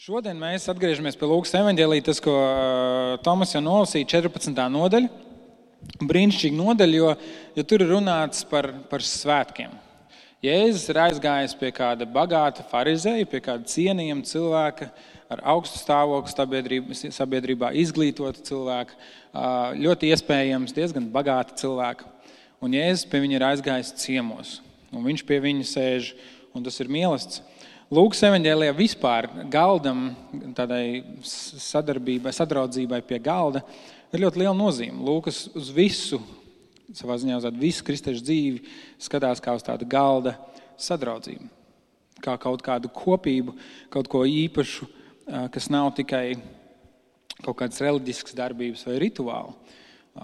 Šodien mēs atgriežamies pie Lūkas evaņģēlija, tas, ko Tomas jau nolasīja, 14. nodaļa. Brīnišķīga nodaļa, jo tur ir runāts par svētkiem. Jēzus ir aizgājis pie kāda bagāta farizeja, pie kāda cienījama cilvēka, ar augstu stāvokli sabiedrībā, izglītota cilvēka, ļoti iespējams diezgan bagāta cilvēka. Un Jēzus pie viņa ir aizgājis ciemos, un viņš pie viņa sēž, un tas ir mīlestība. Lūkas evaņģēlijā vispār galdam, tādai sadraudzībai pie galda, ir ļoti liela nozīme. Lūkas uz visu, savā ziņā uz visu kristiešu dzīvi skatās kā uz tādu galda sadraudzību. Kā kaut kādu kopību, kaut ko īpašu, kas nav tikai kaut kādas reliģiskas darbības vai rituāli.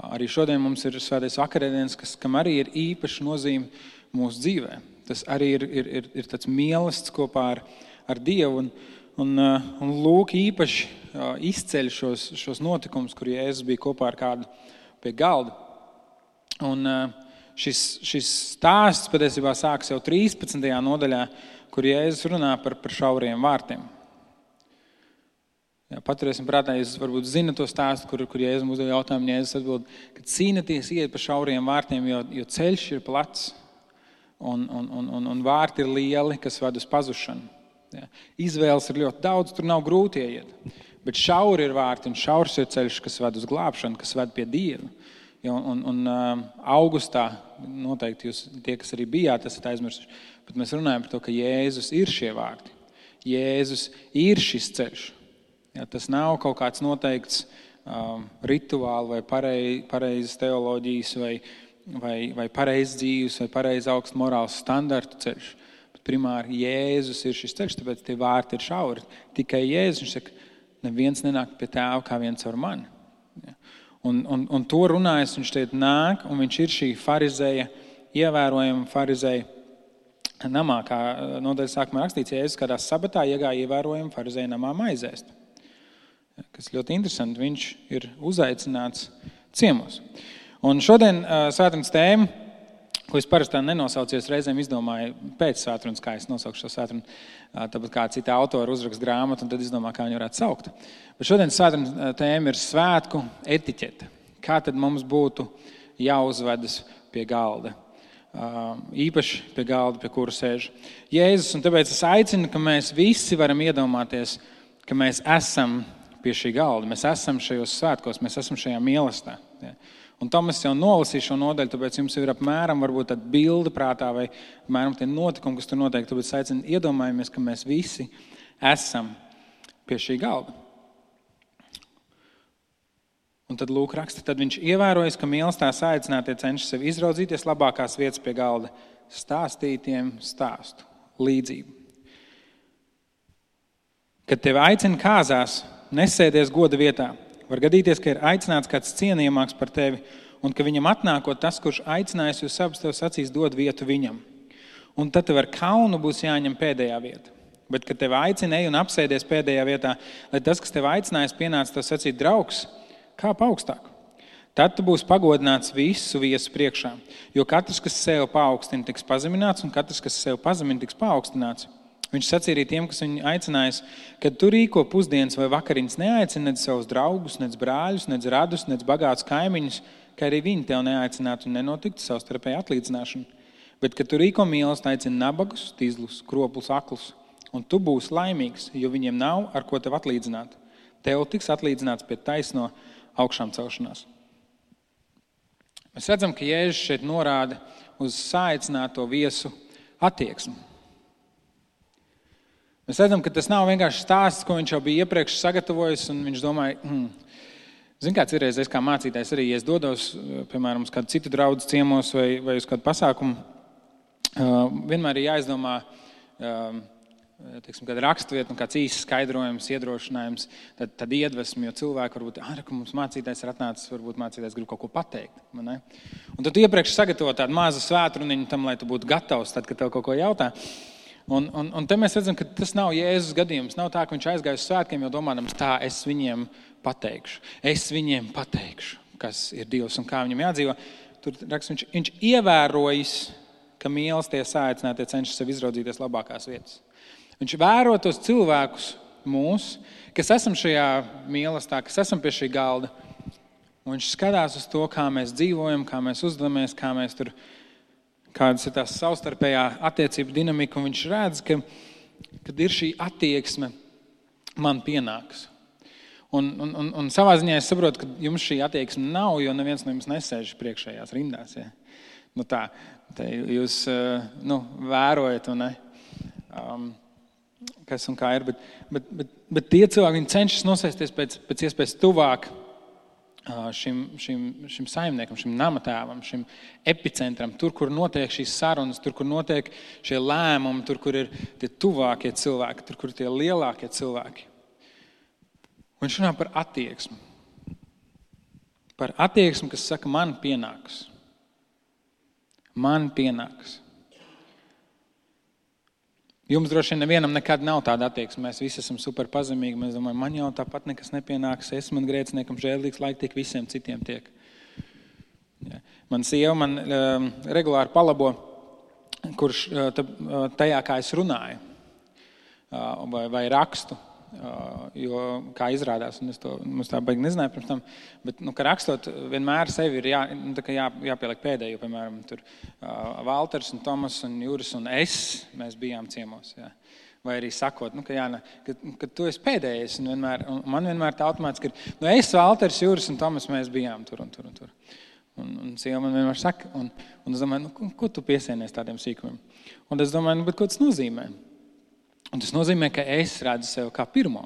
Arī šodien mums ir svētais vakarēdienas, kam arī ir īpaša nozīme mūsu dzīvē. Tas arī ir tāds mīlestības kopā ar Dievu. Un Lūk īpaši izceļ šos notikumus, kur Jēzus bija kopā ar kādu pie galda. Un šis stāsts patiesībā sākas jau 13. nodaļā, kur Jēzus runā par šauriem vārtiem. Paturēsim prātā, jūs varbūt zinat to stāstu, kur Jēzus uzdev jautājumu, Jēzus atbild, ka cīnaties iet pa šauriem vārtiem, jo ceļš ir plats. Un vārti ir lieli, kas ved uz pazušanu. Izvēles ir ļoti daudz, tur nav grūti ieiet. Bet šauri ir vārti un šaurs ir ceļš, kas ved uz glābšanu, kas ved pie Dieva. Augustā, noteikti jūs, tie, kas arī bijāt, esat aizmirsuši, bet mēs runājam par to, ka Jēzus ir šie vārti. Jēzus ir šis ceļš. Tas nav kaut kāds noteikts rituāli vai pareizes teoloģijas vai pareizs dzīves, vai pareiz augsts morāls standartu ceļš. Bet primāri Jēzus ir šis ceļš, tāpēc tie vārti ir šauri. Tikai Jēzus, viņš saka, neviens nenāk pie tēva kā viens ar mani. Un to runājas, viņš šeit nāk, un viņš ir šī farizeja, ievērojama farizeja namā, kā nodaļas sākumā rakstīts, Jēzus kādā sabatā iegāja ievērojama farizeja namā maizēst. Kas ļoti interesanti, viņš ir uzaicināts ciemos. Un šodien svētdienas tēma, ko es parasti nenosaucies, reizēm izdomāju pēc svētdienas, kā es nosaukšu šo svētdienu, tāpat kā cita autora uzraksta grāmatu, un tad izdomāju, kā viņu varētu saukt. Bet šodien svētdienas tēma ir svētku etiķete. Kā tad mums būtu jāuzvedas pie galda? Īpaši pie galda, pie kura sēž Jēzus. Un tāpēc es aicinu, ka mēs visi varam iedomāties, ka mēs esam pie šī galda. Mēs esam šajos svētkos, mēs esam šajā mīlestībā. Un Tomas jau nolasīja šo nodaļu, tāpēc jums ir apmēram varbūt tāda bilde prātā vai apmēram tie notikumi, kas tur notiek. Tāpēc aicinu iedomājamies, ka mēs visi esam pie šī galda. Un tad Lūk raksta, tad viņš ievērojas, ka mīlestībā saicinātie cenšas sev izraudzīties labākās vietas pie galda, stāstītiem stāstu, līdzību. Kad tevi aicina kāzās, nesēdies goda vietā. Var gadīties, ka ir aicināts kāds cienījamāks par tevi, un ka viņam atnākot tas, kurš aicinājis jūs abus, tev sacīs dod vietu viņam. Un tad tev ar kaunu būs jāņem pēdējā vieta. Bet, kad tev aicina, ej un apsēdies pēdējā vietā, lai tas, kas tev aicinājis, pienāca tev sacīt draugs, kāp augstāk. Tad tu būsi pagodināts visu viesu priekšā, jo katrs, kas sev paaugstina, tiks pazemināts, un katrs, kas sev pazemina, tiks paaugstināts. Viņš sacīja arī tiem, kas viņu aicinājis, kad tu rīko pusdienas vai vakariņas neaicini nec savus draugus, nec brāļus, nec radus, nec bagātus kaimiņus, ka arī viņi tev neaicinātu un nenotiktu savstarpēja atlīdzināšana. Bet, kad tu rīko mīlestību, aicini nabagus, tīzlus, kropus, aklus, un tu būsi laimīgs, jo viņiem nav ar ko tev atlīdzināt. Tev tiks atlīdzināts pie taisno augšām celšanās. Mēs redzam, ka Jēzus šeit norāda uz saicināto viesu attieksmi. Mēs redzam, ka tas nav vienkārši stāsts, ko viņš jau bija iepriekš sagatavojis, un viņš domāja, zin kāds ir reizes kā mācītājs arī, ja es dodos, piemēram, uz kādu citu draugu ciemos vai uz kādu pasākumu, vienmēr ir jāizdomā, kāda rakstvieta un kāds īsts skaidrojums, iedrošinājums, tad iedvesmi, jo cilvēki varbūt, ka mums mācītājs ir atnācis, varbūt mācītājs grib kaut ko pateikt. Ne? Un tad tu iepriekš sagatavo tādu mazu svētruniņu tam, lai tu būtu gatavs, tad, kad tev kaut ko jautā. Un te mēs redzam, ka tas nav Jēzus gadījums. Nav tā, ka viņš aizgāja uz svētkiem, jo domādams tā, es viņiem pateikšu. Es viņiem pateikšu, kas ir Dievs un kā viņam jādzīvo. Tur raksts, viņš ievērojas, ka mīlestība saicinātie cenšas sev izraudzīties labākās vietas. Viņš vēro tos cilvēkus, mūs, kas esam šajā mīlestībā, kas esam pie šī galda. Un viņš skatās uz to, kā mēs dzīvojam, kā mēs uzvedamies, kā mēs tur, kādas ir tās savstarpējā attiecību dinamika. Un viņš redz, kad ir šī attieksme, man pienāks. Un savā ziņā es saprotu, ka jums šī attieksme nav, jo neviens no jums nesēž priekšējās rindās. Ja? Tā jūs vērojat, un kas un kā ir. Bet tie cilvēki, viņi cenšas nosēsties pēc iespējas tuvāk šim saimniekam, šim namatēvam, šim epicentram, tur, kur notiek šīs sarunas, tur, kur notiek šie lēmumi, tur, kur ir tie tuvākie cilvēki, tur, kur ir tie lielākie cilvēki. Un viņš runā par attieksmi. Par attieksmi, kas saka, man pienāks. Man pienāks. Jums droši vien nevienam nekad nav tāda attieksme. Mēs visi esam super pazemīgi. Mēs domājam, man jau tāpat nekas nepienāks. Es man grēciniekam žēlīgs, laik tiek visiem citiem tiek. Ja. Man sieva regulāri palabo, kurš tajā, kā es runāju vai rakstu. Jo, kā izrādās, un es to tā baigi nezināju pirms tam, bet, ka rakstot, vienmēr sevi ir jāpieliek pēdējo, piemēram, tur Valters un Tomas un Juris un es, mēs bijām ciemos, jā. Vai arī sakot, ka tu esi pēdējais, un man vienmēr tā automātiski ir, es, Valters, Juris un Tomas, mēs bijām tur un tur un tur. Un sieva man vienmēr saka, un es domāju, ko tu piesienies tādiem sīkumiem? Un es domāju, bet ko tas nozīmē? Un tas nozīmē, ka es redzu sevi kā pirmo.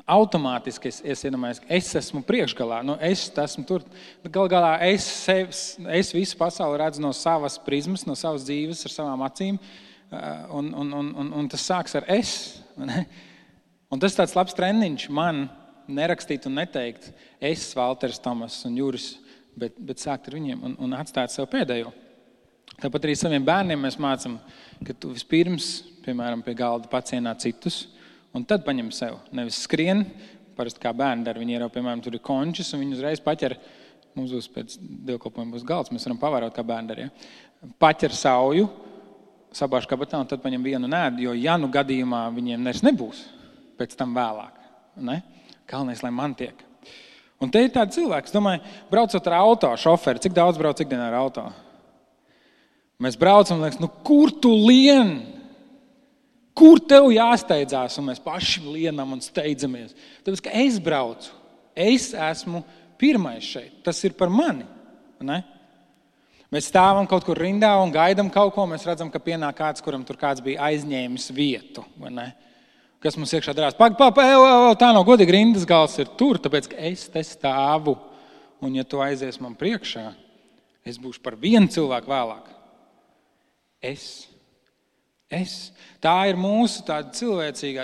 Automātiski es iedomājos, ka es esmu priekšgalā. Es esmu tur. Galu galā es visu pasauli redzu no savas prizmas, no savas dzīves, ar savām acīm. Un tas sāks ar es. Un tas tāds labs treniņš man nerakstīt un neteikt es, Valters, Tomas un Juris, bet sākt ar viņiem un atstāt sev pēdējo. Tāpat arī saviem bērniem mēs mācam, ka tu vispirms, piemēram, pie galda pacienā citus, un tad paņem sev. Nevis skrien, parasti kā bērni dara, viņi ierauj, piemēram, tur ir končis, un viņi uzreiz paķer, mums būs pēc dievkalpojuma būs galds, mēs varam pavērot, kā bērni dara, ja? Paķer sauju, sabāž kabatā, un tad paņem vienu un ēd, jo gadījumā viņiem nebūs pēc tam vēlāk. Ne? Galvenais, lai man tiek. Un te ir tādi cilvēki, es domāju, braucot ar auto, šoferi, cik daudz brauc ikdienā ar auto? Mēs braucam un liekas, kur tu lien? Kur tev jāsteidzās? Un mēs paši lienam un steidzamies. Tāpēc, ka es braucu. Es esmu pirmais šeit. Tas ir par mani. Ne? Mēs stāvam kaut kur rindā un gaidam kaut ko. Mēs redzam, ka pienāk kāds, kuram tur kāds bija aizņēmis vietu. Vai ne? Kas mums iekšā darās? Tā nav godīgi, rindas gals ir tur, tāpēc, ka es te stāvu. Un ja tu aizies man priekšā, es būšu par vienu cilvēku vēlāk. Es. Tā ir mūsu tāda cilvēcīgā.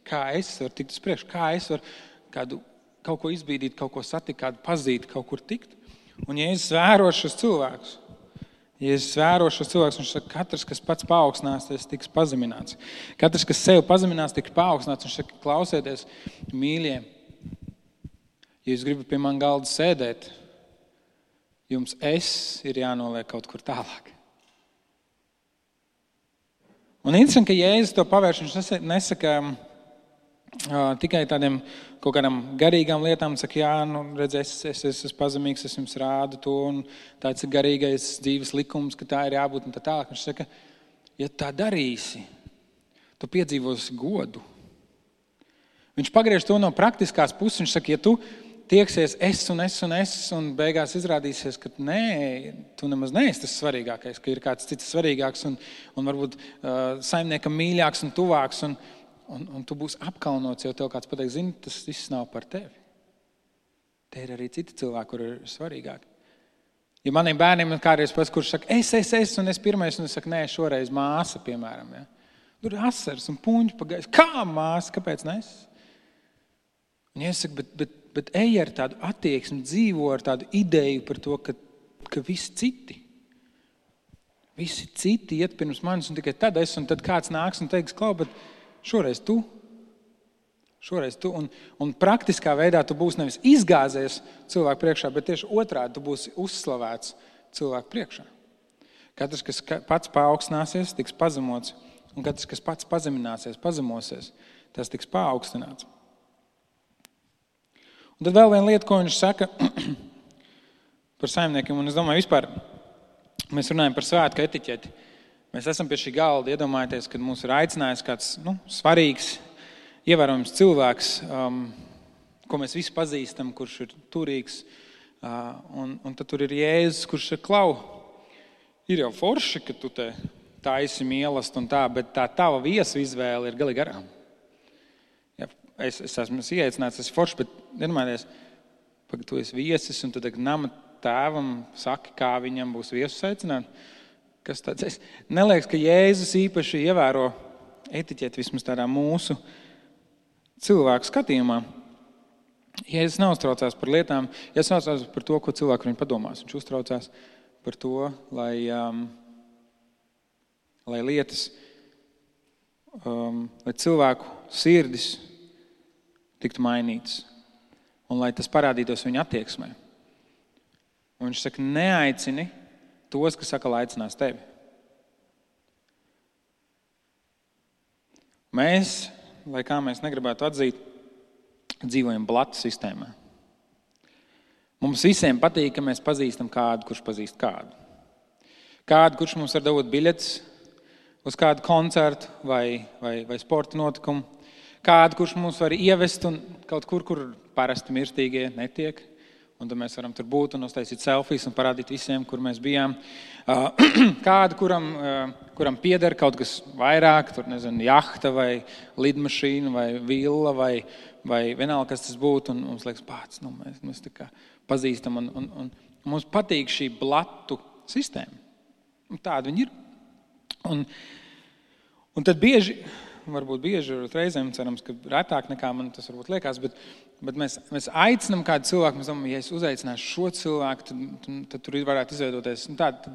Kā es varu tikt uz priekšu, kā es varu kaut ko izbīdīt, kaut ko satikt, kādu pazīt, kaut kur tikt. Un ja es vēro šos cilvēkus, viņš saka, katrs, kas pats paaugstinās, tiks pazemināts. Katrs, kas sevi pazeminās, tiks paaugstināts. Viņš saka, klausieties, mīļie, ja jūs gribat pie man galda sēdēt, jums ir jānoliek kaut kur tālāk. Un interesanti, ka Jēzus to pavērš, viņš nesaka tikai tādiem kaut kādām garīgām lietām, saka, redz, es esmu pazemīgs, es jums rādu to, un tāds ir garīgais dzīves likums, ka tā ir jābūt un tā tālāk. Viņš saka, ja tā darīsi, tu piedzīvosi godu. Viņš pagriež to no praktiskās puses, viņš saka, ja tu tieksies un beigās izrādīsies, ka nē, tu nemaz neesi tas svarīgākais, ka ir kāds cits svarīgāks un varbūt saimniekam mīļāks un tuvāks un tu būsi apkaunots, jo tev kāds pateiks, zini, tas viss nav par tevi. Te ir arī citi cilvēki, kur ir svarīgāki. Ja maniem bērniem ir kādreiz pats, kurš saka, es un es pirmais, un es saku, nē, šoreiz māsa, piemēram. Ja? Tur ir asars un puņķi pagājis. Kā māsa? Kāpēc ne es? Un ja es saku, bet ej ar tādu attieksmi, dzīvo ar tādu ideju par to, ka visi citi iet pirms manis un tikai tad es, un tad kāds nāks un teiks, klau, bet šoreiz tu. Un praktiskā veidā tu būsi nevis izgāzies cilvēku priekšā, bet tieši otrādi tu būsi uzslavēts cilvēku priekšā. Katrs, kas pats paaugstināsies, tiks pazemots, Un katrs, kas pats pazemināsies, pazemosies, tas tiks paaugstināts. Un tad vēl viena lieta, ko viņš saka par saimniekiem, un es domāju, vispār mēs runājam par svētku etiķeti. Mēs esam pie šī galda, iedomājieties, kad mūs ir aicinājis kāds svarīgs, ievērojams cilvēks, ko mēs visi pazīstam, kurš ir turīgs, un tad tur ir Jēzus, kurš ir klau. Ir jau forši, ka tu te taisi mīlestību un tā, bet tā tava viesu izvēle ir galīgi garām. Ja, es esmu ieaicināts, es forši, bet iedomājieties, ka tu esi viesis un tu nama tēvam saki, kā viņam būs viesus aicināt. Kas tāds? Es neliekas, ka Jēzus īpaši ievēro etiķeti vismaz tādā mūsu cilvēku skatījumā. Jēzus neuztraucās par lietām, Jēzus neuztraucās par to, ko cilvēki viņu padomās. Viņš uztraucās par to, lai lietas, lai cilvēku sirdis tiktu mainītas un lai tas parādītos viņa attieksmē. Un viņš saka, neaicini tos, kas saka, lai aicinās tevi. Mēs, lai kā mēs negribētu atzīt, dzīvojam blatu sistēmā. Mums visiem patīk, ka mēs pazīstam kādu, kurš pazīst kādu. Kādu, kurš mums var dot biļetes uz kādu koncertu vai sporta notikumu. Kādu, kurš mums var ievest un kaut kur parasti mirstīgie netiek. Un tad mēs varam tur būt un uztaisīt selfijas un parādīt visiem, kur mēs bijām. Kādu, kuram pieder kaut kas vairāk, tur nezinu, jahta vai lidmašīna vai villa vai vienalga, kas tas būtu. Un mums liekas, pats, mēs tā kā pazīstam. Un mums patīk šī blatu sistēma. Un tāda viņi ir. Un tad varbūt bieži, reizēm cerams, ka retāk nekā man tas varbūt liekas, bet mēs aicinām kādu cilvēku, mēs domājam, ja es uzaicināšu šo cilvēku, tad tur varētu izveidoties tāda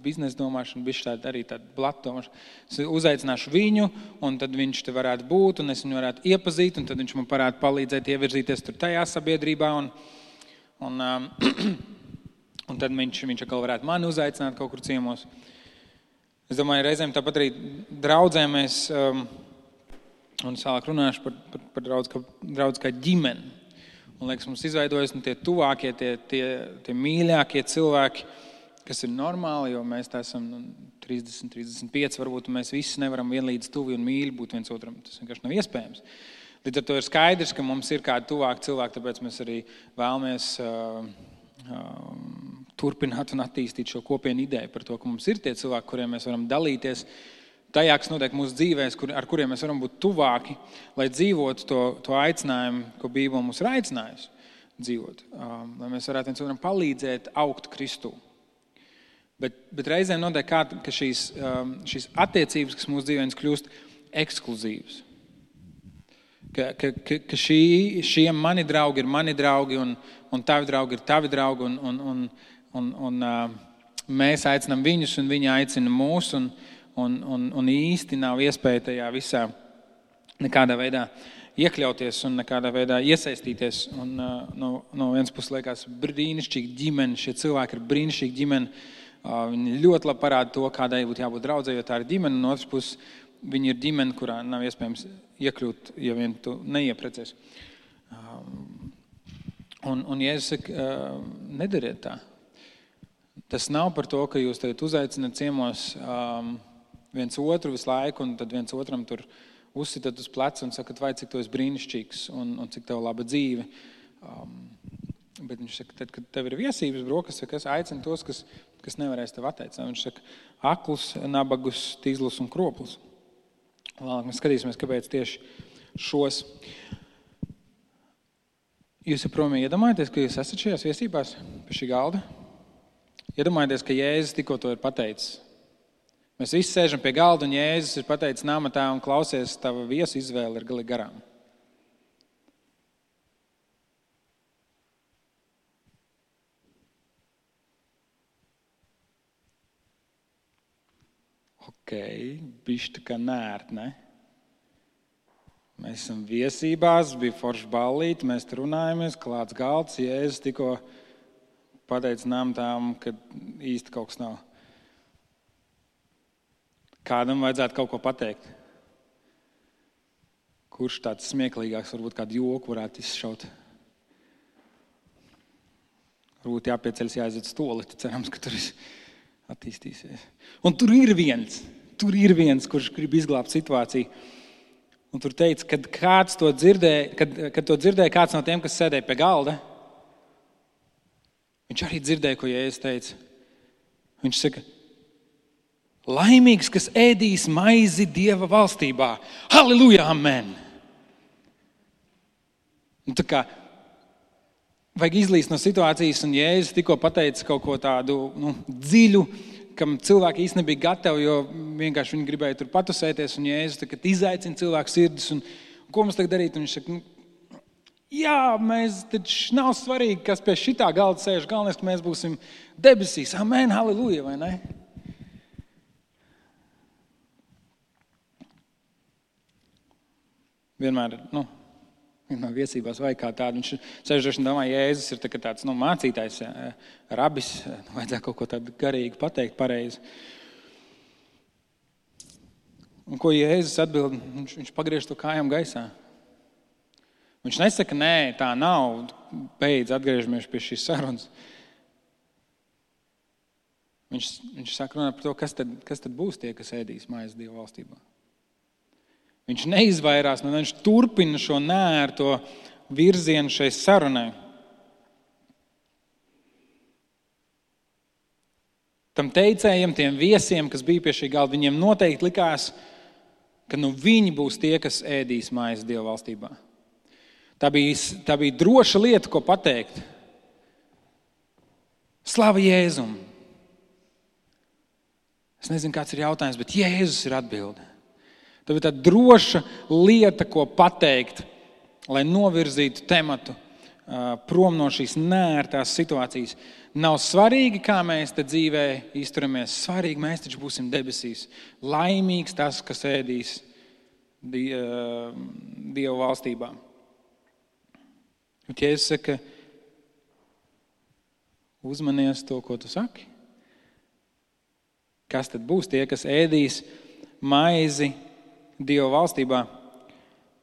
biznesa domāšana, bišķi tāda arī tāda blata domāšana. Es uzaicināšu viņu, un tad viņš te varētu būt, un es viņu varētu iepazīt, un tad viņš man varētu palīdzēt ievirzīties tur tajā sabiedrībā, un tad viņš atkal varētu mani uzaicināt kaut kur ciemos. Es domāju, reizēm tāpat arī draudzēm mēs, un es vēlāk runāšu par draudz kā ģimeni. Un liekas, mums izveidojas tie tuvākie, tie mīļākie cilvēki, kas ir normāli, jo mēs tā esam 30, 35, varbūt mēs visi nevaram vienlīdz tuvi un mīļi būt viens otram. Tas vienkārši nav iespējams. Līdz ar to ir skaidrs, ka mums ir kādi tuvāki cilvēki, tāpēc mēs arī vēlamies turpināt un attīstīt šo kopienu ideju par to, ka mums ir tie cilvēki, kuriem mēs varam dalīties tajā, kas notiek mūsu dzīvēs, ar kuriem mēs varam būt tuvāki, lai dzīvotu to aicinājumu, ko Bībele mums ir aicinājusi dzīvot. Lai mēs varētu viens otram palīdzēt augt Kristū. Bet reizēm notiek ka šīs attiecības, kas mūsu dzīvēs kļūst ekskluzīvas. Ka šie mani draugi ir mani draugi un tavi draugi ir tavi draugi un mēs aicinām viņus un viņi aicina mūs un īsti nav iespēja tajā visā nekādā veidā iekļauties un nekādā veidā iesaistīties. Un no vienas puses liekas brīnišķīga ģimene, šie cilvēki ir brīnišķīga ģimene. Viņi ļoti labi parāda to, kādai būtu jābūt draudzē, jo tā ir ģimene. Un otras puses viņi ir ģimene, kurā nav iespējams iekļūt, ja vien tu neieprecies. Un Jēzus saka, nedariet tā. Tas nav par to, ka jūs tagad uzaicināt ciemos viens otru visu laiku, un tad viens otram tur uzsitat uz pleca un sakat, vai cik tu esi brīnišķīgs un cik tev laba dzīve. Bet viņš saka, tad, kad tev ir viesības brokas, es aicinu tos, kas nevarēs tev atteicināt. Viņš saka, aklus, nabagus, tīzlus un kroplus. Vēlāk mēs skatīsimies, kāpēc tieši šos. Jūs joprojām iedomājaties, ka jūs esat šajās viesībās pie šī galda? Iedomājieties, ka Jēzus tikko to ir pateicis. Mēs visi sēžam pie galda un Jēzus ir pateicis namatā un klausies, tava viesu izvēle ir galīgi garām. Bišķi tā kā nērt, ne? Mēs esam viesībās, bija forša ballīte, mēs tur runājamies, klāts galds, Jēzus tikko pateica namatām, ka īsti kaut kas nav. Kādam vajadzētu kaut ko pateikt. Kurš tāds smieklīgāks, varbūt kādu joku varētu izšaut. Varbūt jāpieceļas, jāaiziet stoleti, cerams, ka tur viss attīstīsies. Un tur ir viens, kurš grib izglābt situāciju. Un tur teica, kad to dzirdēja kāds no tiem, kas sēdēja pie galda, viņš arī dzirdēja, ko Jēzus teica. Viņš saka, laimīgs, kas ēdīs maizi Dieva valstībā. Halleluja, amen! Un tā kā vajag izlīst no situācijas, un Jēzus tikko pateica kaut ko tādu dziļu, kam cilvēki īsti nebija gatavi, jo vienkārši viņi gribēja tur patusēties, un Jēzus tagad izaicina cilvēku sirdis, un ko mums tagad darīt? Un viņš saka, jā, mēs taču nav svarīgi, kas pie šitā galda sēž, galvenais, ka mēs būsim debesīs. Amen, halleluja, vai ne? Vienmēr viesībās vajag kā tādu. Viņš sēžoši un domā, Jēzus ir tāds mācītājs, rabis, vajadzētu kaut ko tādu garīgu pateikt pareizi. Un ko Jēzus atbild? Viņš pagriež to kājām gaisā. Viņš nesaka, nē, tā nav, beidz, atgriežamies pie šīs sarunas. Viņš saka runāt par to, kas tad būs tie, kas ēdīs maizi Dieva valstībā. Viņš neizvairās, viņš turpina šo neērto virzienu šai sarunai. Tam teicējiem, tiem viesiem, kas bija pie šī galda, viņiem noteikti likās, ka viņi būs tie, kas ēdīs maizi Dieva valstībā. Tā bija droša lieta, ko pateikt. Slava Jēzum! Es nezinu, kāds ir jautājums, bet Jēzus ir atbilde. Tā bija tā droša lieta, ko pateikt, lai novirzītu tematu prom no šīs neērtās situācijas. Nav svarīgi, kā mēs te dzīvē izturamies. Svarīgi, mēs taču būsim debesīs. Laimīgs tas, kas ēdīs Dieva valstībā. Bet Jēzus saka, uzmanies to, ko tu saki. Kas tad būs tie, kas ēdīs maizi Dieva valstībā?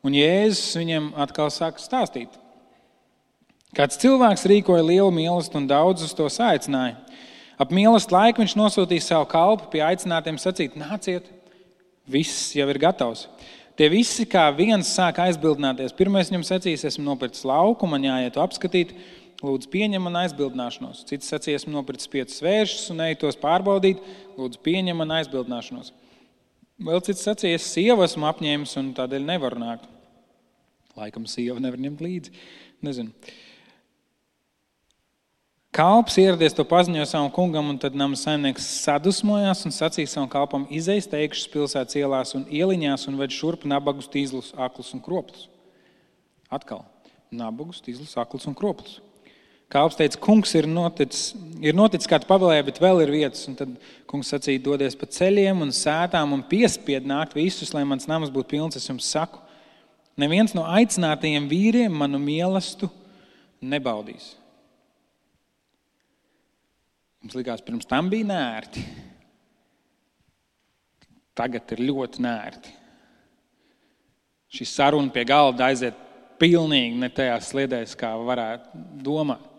Un Jēzus viņiem atkal sāk stāstīt. Kāds cilvēks rīkoja lielu mīlestību un daudzus to saicināja. Ap mīlestību laiku viņš nosūtīja savu kalpu pie aicinātiem sacīt, nāciet, viss jau ir gatavs. Tie visi kā viens sāk aizbildināties. Pirmais viņam sacīs, esmu nopircis lauku, man jāiet apskatīt, lūdzu pieņem man aizbildināšanos. Cits sacīs, esmu nopircis 5 svēršus un eju tos pārbaudīt, lūdzu pieņem man aizbildināšanos. Vēl cits sacīs, sievu esmu apņēmis un tādēļ nevaru nākt. Laikam sieva nevar ņemt līdzi. Nezinu. Kalps ieradies to paziņoja savam kungam, un tad nama saimnieks sadusmojās un sacīja savam kalpam, izej steigšus pilsētas ielās un ieliņās un ved šurp nabagus, tīzlus, aklus un kroplus. Atkal. Nabagus, tīzlus, aklus un kroplus. Kalps teica, kungs ir noticis kā tu pavēlēji, bet vēl ir vietas. Un tad kungs sacīja, dodies pa ceļiem un sētām un piespied nākt visus, lai mans nams būtu pilns, es jums saku. Neviens no aicinātajiem vīriem manu mīlestību nebaudīs. Mums likās, pirms tam bija nērti. Tagad ir ļoti nērti. Šī saruna pie galda aiziet pilnīgi ne tajās sliedēs, kā varētu domāt.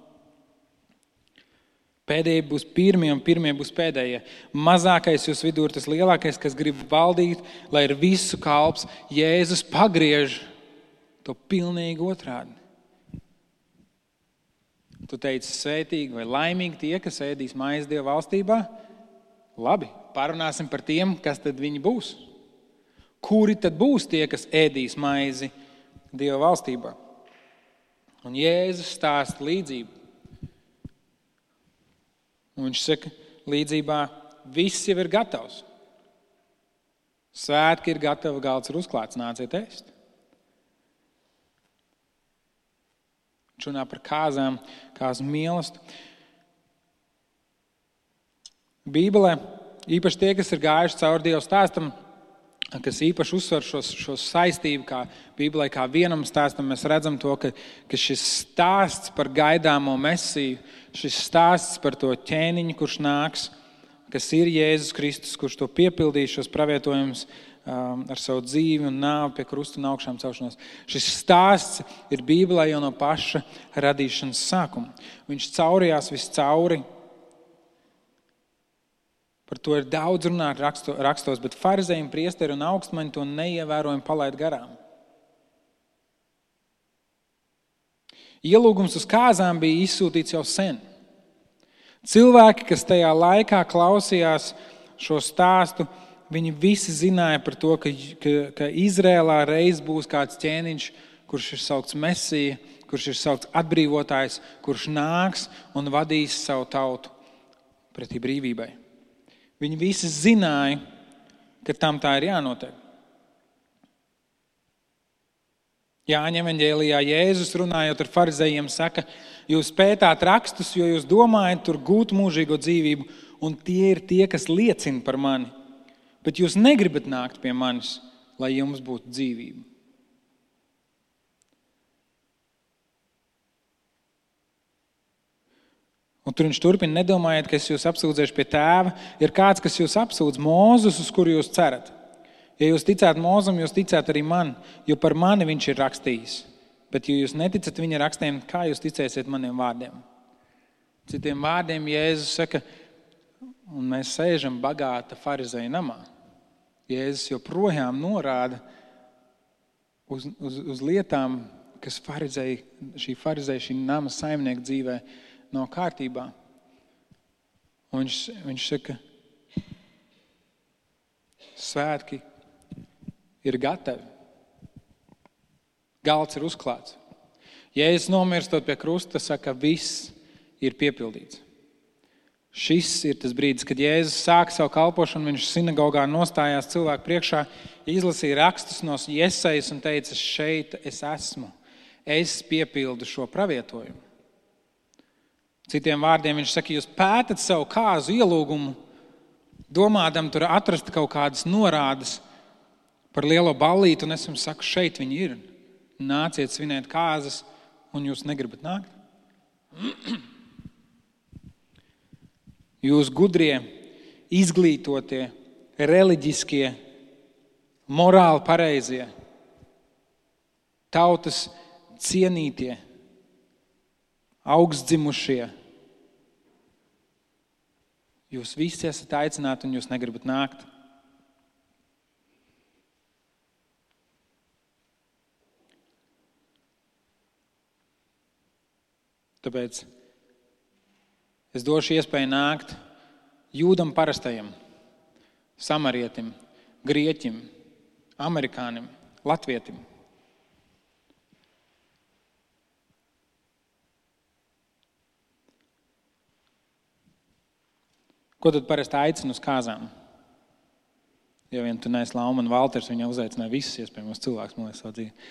Pēdējie būs pirmie un pirmie būs pēdējie. Mazākais jūs vidū ir tas lielākais, kas grib valdīt, lai ir visu kalps. Jēzus pagriež to pilnīgi otrādi. Tu teici svētīgi vai laimīgi tie, kas ēdīs maizi Dieva valstībā? Labi, parunāsim par tiem, kas tad viņi būs. Kuri tad būs tie, kas ēdīs maizi Dieva valstībā? Un Jēzus stāsta līdzību. Un viņš saka, līdzībā viss jau ir gatavs. Svētki ir gatavi, galds ir uzklāts, nāciet ēst. Viņš runā par kāzām, kāzu mīlestību. Bībelē, īpaši tie, kas ir gājuši cauri Dieva stāstam, kas īpaši uzsver šo saistību, kā Bībelē, kā vienam stāstam, mēs redzam to, ka šis stāsts par gaidāmo Mesiju, šis stāsts par to ķēniņu, kurš nāks, kas ir Jēzus Kristus, kurš to piepildīs šos pravietojumus ar savu dzīvi un nāvi pie krusta un augšām celšanos. Šis stāsts ir Bībelē jau no paša radīšanas sākuma. Viņš caurījās viscauri. Par to ir daudz runāt rakstos, bet farizēji, priesteri un augstmaņi to neievērojami palaid garām. Ielūgums uz kāzām bija izsūtīts jau sen. Cilvēki, kas tajā laikā klausījās šo stāstu, viņi visi zināja par to, ka Izrēlā reiz būs kāds ķēniņš, kurš ir saukts Mesija, kurš ir saukts atbrīvotājs, kurš nāks un vadīs savu tautu pretī brīvībai. Viņi visi zināja, ka tam tā ir jānotiek. Jāņa evaņģēlijā Jēzus runājot ar farizējiem saka, jūs pētāt rakstus, jo jūs domājat tur gūt mūžīgo dzīvību, un tie ir tie, kas liecina par mani. Bet jūs negribat nākt pie manis, lai jums būtu dzīvība. Un tur viņš turpina, nedomājiet, ka es jūs apsūdzēšu pie tēva. Ir kāds, kas jūs apsūdz, Mūzus, uz kuru jūs cerat. Ja jūs ticāt Mūzum, jūs ticāt arī man, jo par mani viņš ir rakstījis. Bet, ja jūs neticat viņa rakstiem, kā jūs ticēsiet maniem vārdiem? Citiem vārdiem Jēzus saka, un mēs sēžam bagāta farizēja namā. Jēzus joprojām norāda uz lietām, kas šī nama saimnieka dzīvē nav kārtībā. Un viņš saka, svētki ir gatavi. Galds ir uzklāts. Jēzus nomirstot pie krusta, saka, viss ir piepildīts. Šis ir tas brīdis, kad Jēzus sāka savu kalpošanu, viņš sinagogā nostājās cilvēku priekšā, izlasīja rakstus no Jesajas un teica, šeit es esmu. Es piepildu šo pravietojumu. Citiem vārdiem viņš saka, jūs pētat savu kāzu ielūgumu, domādam tur atrast kaut kādas norādes par lielo ballīti, un es jums saku, šeit viņi ir. Nāciet svinēt kāzas, un jūs negribat nākt. Jūs gudrie, izglītotie, reliģiskie, morāli pareizie, tautas cienītie, augstdzimušie. Jūs visi esat aicināti, un jūs negribat nākt. Tāpēc es došu iespēju nākt jūdam parastajam, samarietim, grieķim, amerikānim, latvietim. Ko tad parasti aicina uz kāzām? Ja vien tu neesi Lauma un Valters, viņa uzaicināja visus iespējamos cilvēkus, man liekas, savu dzīvi.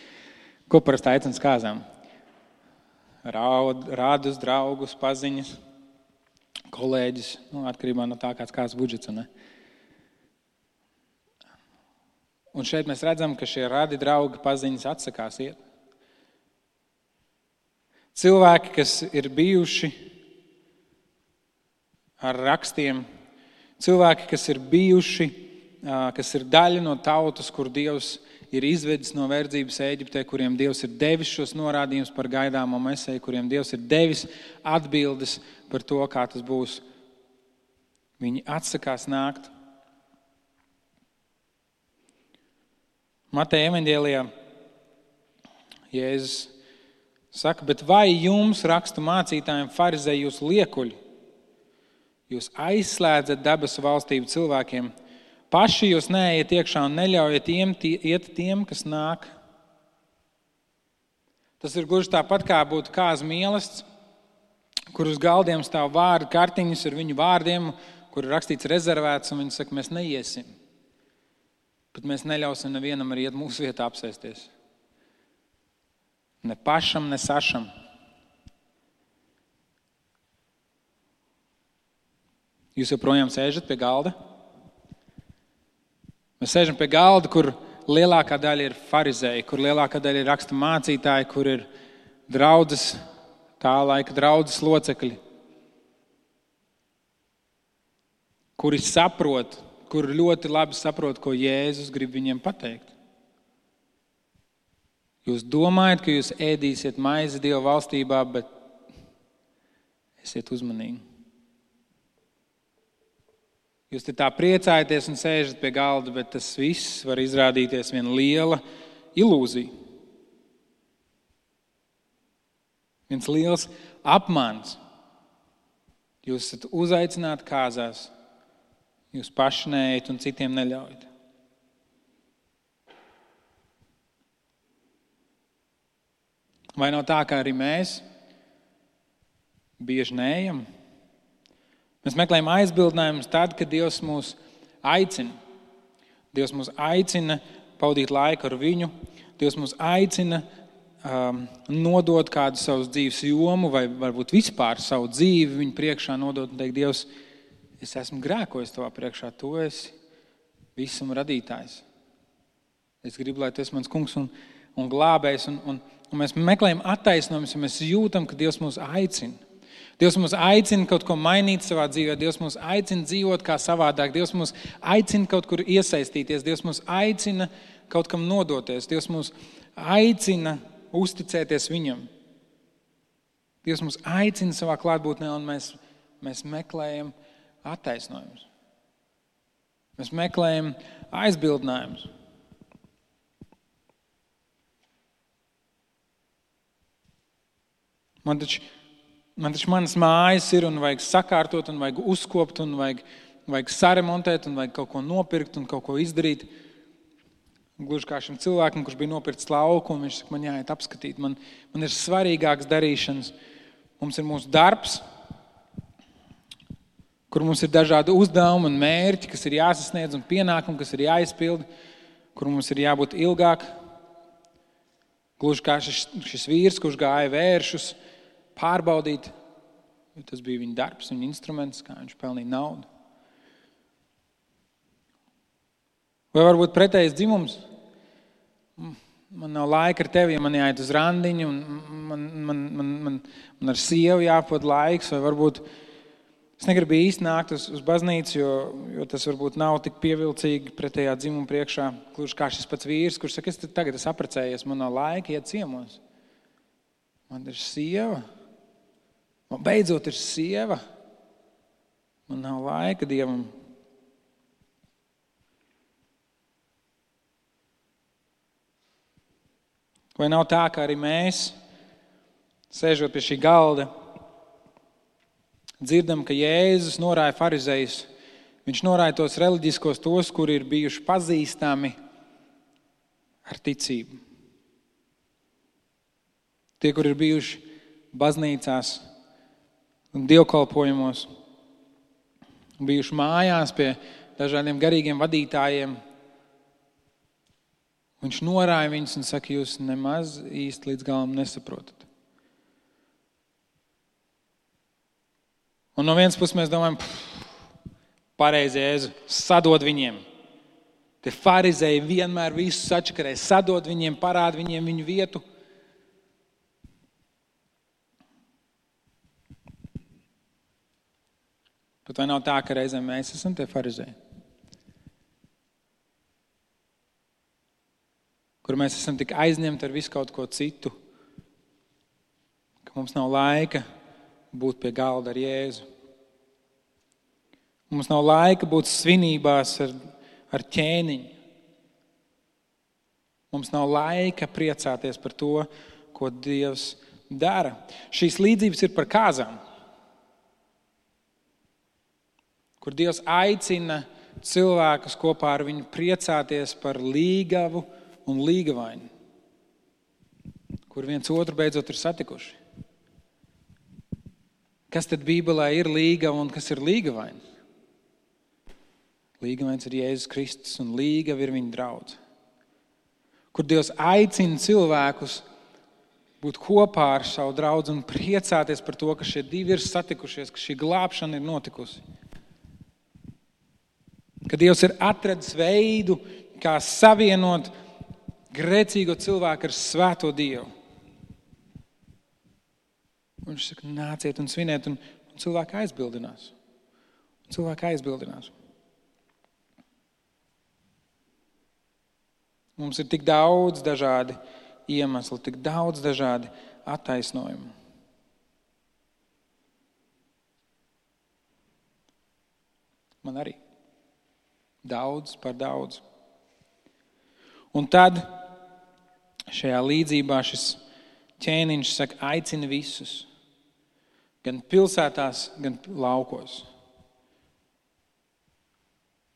Ko parasti aicina uz kāzām? Rādus, draugus, paziņas, kolēģis, atkarībā no tā, kāds budžets. Un šeit mēs redzam, ka šie radi, draugi, paziņas atsakās iet. Cilvēki, kas ir bijuši ar rakstiem, cilvēki, kas ir bijuši, kas ir daļa no tautas, kur Dievs ir izvedis no verdzības Ēģiptē, kuriem Dievs ir devis šos norādījumus par gaidāmo Mesiju, kuriem Dievs ir devis atbildes par to, kā tas būs. Viņi atsakās nākt. Mateja evaņģēlijā Jēzus saka, bet vai jums, rakstu mācītājiem, farizēji, jūs liekuļi? Jūs aizslēdzat debesu valstību cilvēkiem. Paši jūs neejiet iekšā un neļaujiet iet tiem, kas nāk. Tas ir gluži tāpat, kā būtu kāzu mīlestība, kur uz galdiem stāv vārdu kartiņas ar viņu vārdiem, kur ir rakstīts rezervēts, un viņi saka, mēs neiesim. Bet mēs neļausim nevienam arī iet mūsu vietā apsēsties. Ne pašam, ne sašam. Jūs joprojām sēžat pie galda? Mēs sēžam pie galda, kur lielākā daļa ir farizēji, kur lielākā daļa ir raksta mācītāji, kur ir draudzes, tā laika draudzes locekļi. kuri saprot, kuri ļoti labi saprot, ko Jēzus grib viņiem pateikt. Jūs domājat, ka jūs ēdīsiet maizi Dieva valstībā, bet esiet uzmanīgi. Jūs te tā priecājaties un sēžat pie galda, bet tas viss var izrādīties viena liela ilūzija. Viens liels apmāns. Jūs esat uzaicināti kāzās, jūs paši neejat un citiem neļaujat. Vai nav tā, ka arī mēs bieži neejam? Mēs meklējam aizbildinājumus tad, kad Dievs mūs aicina. Dievs mūs aicina pavadīt laiku ar viņu. Dievs mūs aicina nodot kādu savas dzīves jomu vai varbūt vispār savu dzīvi viņu priekšā nodot un teikt, Dievs, es esmu grēkojis tavā priekšā, tu esi visam radītājs. Es gribu, lai tu esi mans kungs un glābējs. Un mēs meklējam attaisnojumus, ja mēs jūtam, ka Dievs mūs aicina. Dievs mūs aicina kaut ko mainīt savā dzīvē. Dievs mūs aicina dzīvot kā savādāk. Dievs mūs aicina kaut kur iesaistīties. Dievs mūs aicina kaut kam nodoties. Dievs mūs aicina uzticēties viņam. Dievs mūs aicina savā klātbūtnē un mēs meklējam attaisnojumus. Mēs meklējam aizbildinājumus. Man taču manas mājas ir un vajag sakārtot un vajag uzkopt un vajag saremontēt un vajag kaut ko nopirkt un kaut ko izdarīt. Gluži kā šim cilvēkam, kurš bija nopircis lauku un viņš saka, man jāiet apskatīt. Man ir svarīgāks darīšanas. Mums ir mūsu darbs, kur mums ir dažādi uzdevumi un mērķi, kas ir jāsasniedz un pienākumi, kas ir jāizpild, kur mums ir jābūt ilgāk. Gluži kā šis vīrs, kurš gāja vēršus, pārbaudīt, jo tas bija viņa darbs, viņa instruments, kā viņš pelnīja naudu. Vai varbūt pretējs dzimums? Man nav laika ar tevi, ja man jāiet uz randiņu, un man ar sievu jāpavada laiks, vai varbūt es negribu īsti nākt uz baznīcu, jo tas varbūt nav tik pievilcīgi pretējā dzimuma priekšā, gluži kā šis pats vīrs, kurš saka, tagad es apprecējies, man nav laika iet ciemos. Man ir sieva. Man beidzot ir sieva. Man nav laika Dievam. Vai nav tā, ka arī mēs, sēžot pie šī galda, dzirdam, ka Jēzus norāja farizejus. Viņš norāja tos reliģiskos, tos, kuri ir bijuši pazīstami ar ticību. Tie, kuri ir bijuši baznīcās un dievkalpojumos, bijuši mājās pie dažādiem garīgiem vadītājiem. Viņš norāja viņus un saka, jūs nemaz īsti līdz galam nesaprotat. Un no vienas puses mēs domājam, pareizi Jēzu, sadod viņiem. Tie farizēji vienmēr visu sačakarē, sadod viņiem, parāda viņiem viņu vietu. Bet vai nav tā, ka reizēm mēs esam tie farizēji? Kur mēs esam tik aizņemti ar visu kaut ko citu, ka mums nav laika būt pie galda ar Jēzu. Mums nav laika būt svinībās ar ķēniņu. Mums nav laika priecāties par to, ko Dievs dara. Šīs līdzības ir par kāzām, kur Dievs aicina cilvēkus kopā ar viņu priecāties par līgavu un līgavaini, kur viens otru beidzot ir satikuši. Kas tad Bībelē ir līgava un kas ir līgavaini? Līgavains ir Jēzus Kristus un līgava ir viņa draudze. Kur Dievs aicina cilvēkus būt kopā ar savu draudzi un priecāties par to, ka šie divi ir satikušies, ka šī glābšana ir notikusi. Ka Dievs ir atradis veidu, kā savienot grēcīgo cilvēku ar svēto Dievu. Un viņš saka, nāciet un sviniet, un cilvēki aizbildinās. Cilvēki aizbildinās. Mums ir tik daudz dažādi iemesli, tik daudz dažādi attaisnojumi. Man arī. Daudz par daudz. Un tad šajā līdzībā šis ķēniņš saka, aicina visus. Gan pilsētās, gan laukos.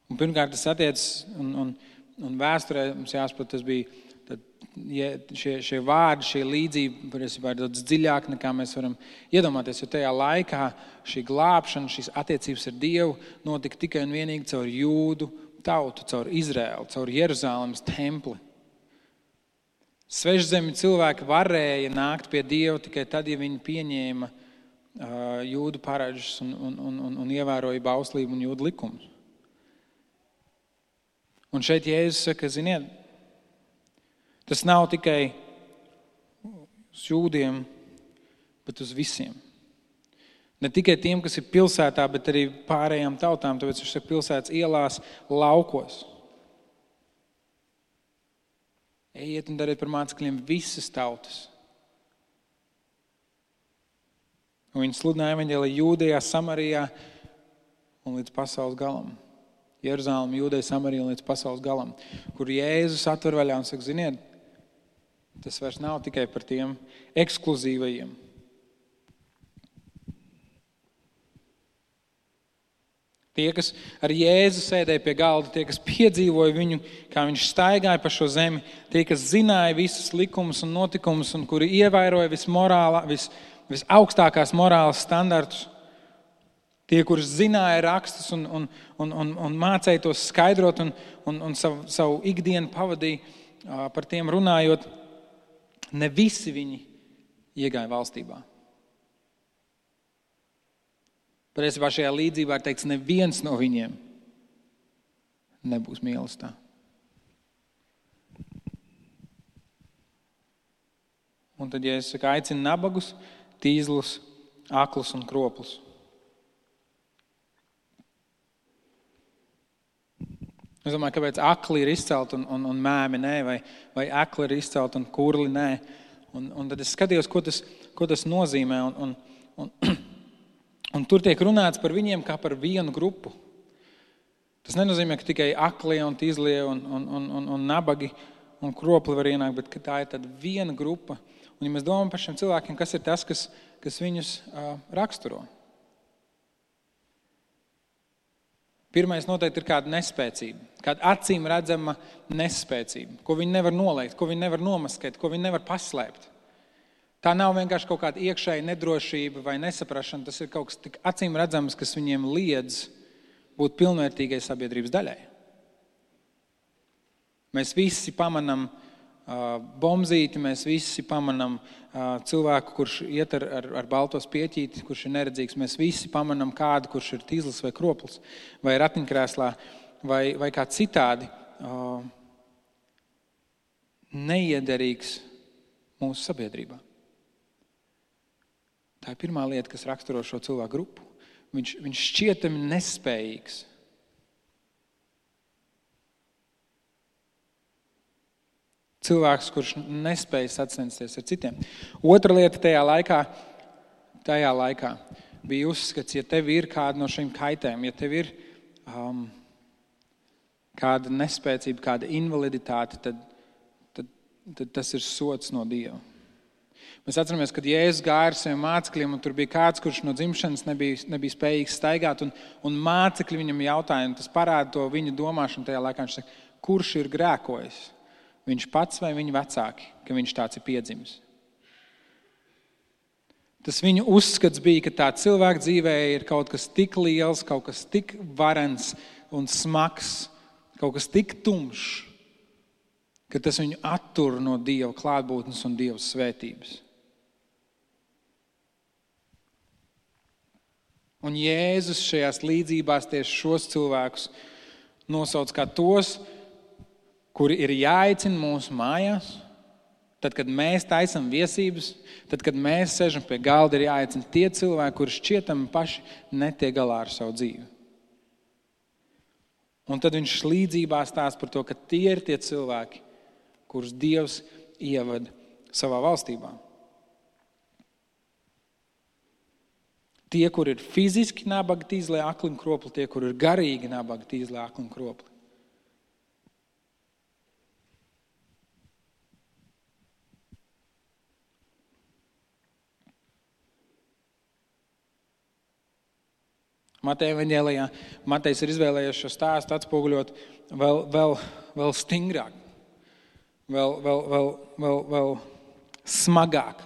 Un pirmkārt tas attiecas, un vēsturē mums jāsaprot, tas bija, tad, šie vārdi, šie līdzība, patiesībā ir daudz dziļāk, nekā mēs varam iedomāties, jo tajā laikā šī glābšana, šīs attiecības ar Dievu notika tikai un vienīgi caur Jūdu tautu, caur Izraēlu, caur Jeruzālemes templi. Svešzemi cilvēki varēja nākt pie Dieva tikai tad, ja viņi pieņēma Jūdu paražas un ievēroja bauslību un Jūdu likumus. Un šeit Jēzus saka, ziniet, tas nav tikai uz jūdiem, bet uz visiem. Ne tikai tiem, kas ir pilsētā, bet arī pārējām tautām, tāpēc viņš saka pilsētas ielās, laukos. Ejiet un dariet par mācekļiem visas tautas. Un viņi sludināja evaņģēliju Jūdejā, Samarijā un līdz pasaules galam. Jeruzālem, Jūdeja, Samarija un līdz pasaules galam, kur Jēzus atver vaļā un saka, ziniet, tas vairs nav tikai par tiem ekskluzīvajiem. Tie, kas ar Jēzu sēdēja pie galda, tie, kas piedzīvoja viņu, kā viņš staigāja pa šo zemi, tie, kas zināja visus likumus un notikumus un kuri ievēroja visaugstākās morāles standartus, tie, kurus zināja rakstus un mācēja tos skaidrot un savu ikdienu pavadīja par tiem runājot, ne visi viņi iegāja valstībā. Patiesībā šajā līdzībā ir teikts, neviens no viņiem nebūs mīlestībā. Un tad, ja es saku, aicinu nabagus, tīzlus, aklus un kroplus. Es domāju, kāpēc akli ir izcelt un mēmi nē, vai akli ir izcelt un kurli nē. Un tad es skatījos, ko tas nozīmē. Un tur tiek runāts par viņiem kā par vienu grupu. Tas nenozīmē, ka tikai aklie un tīzlie un nabagi un kropli var ienākt, bet ka tā ir tāda viena grupa. Un ja mēs domājam par šiem cilvēkiem, kas ir tas, kas viņus raksturo? Pirmais noteikti ir kāda nespēcība, kāda acīm redzama nespēcība, ko viņi nevar noliegt, ko viņi nevar nomaskēt, ko viņi nevar paslēpt. Tā nav vienkārši kaut kāda iekšēja nedrošība vai nesaprašana, tas ir kaut kas tik acīm redzams, kas viņiem liedz būt pilnvērtīgai sabiedrības daļai. Mēs visi pamanam bombzīti, mēs visi pamanam cilvēku, kurš iet ar balto spieķīti, kurš ir neredzīgs. Mēs visi pamanam kādu, kurš ir tīzlis vai kroplis, vai ratiņkrēslā, vai kā citādi neiederīgs mūsu sabiedrībā. Tā ir pirmā lieta, kas raksturo šo cilvēku grupu. Viņš šķietami nespējīgs. Cilvēks, kurš nespēja sacensties ar citiem. Otra lieta tajā laikā bija uzskats, ja tev ir kāda no šīm kaitēm, ja tev ir kāda nespēcība, kāda invaliditāte, tad tas ir sods no Dieva. Mēs atceramies, kad Jēzus gāja ar saviem mācekļiem, un tur bija kāds, kurš no dzimšanas nebija spējīgs staigāt, un mācekļi viņam jautāja, un tas parāda to viņa domāšanu tajā laikā. Viņš saka, kurš ir grēkojis? Viņš pats vai viņa vecāki, ka viņš tāds ir piedzimis. Tas viņu uzskats bija, ka tā cilvēka dzīvē ir kaut kas tik liels, kaut kas tik varens un smags, kaut kas tik tumšs, ka tas viņu attur no Dieva klātbūtnes un Dieva svētības. Un Jēzus šajās līdzībās tieši šos cilvēkus nosauc kā tos, kuri ir jāaicina mūsu mājās, tad, kad mēs taisam viesības, tad, kad mēs sežam pie galda, ir jāaicina tie cilvēki, kuri šķietami paši netiek galā ar savu dzīvi. Un tad viņš līdzībā stāsta par to, ka tie ir tie cilvēki, kurus Dievs ievada savā valstībā. Tie, kur ir fiziski nabagi, tīzlē, akli un kropli, tie, kur ir garīgi nabagi, tīzlē, akli un kropli. Mateja evaņģēlijā Matejs ir izvēlējies šo stāstu atspoguļot vēl stingrāk, vēl smagāk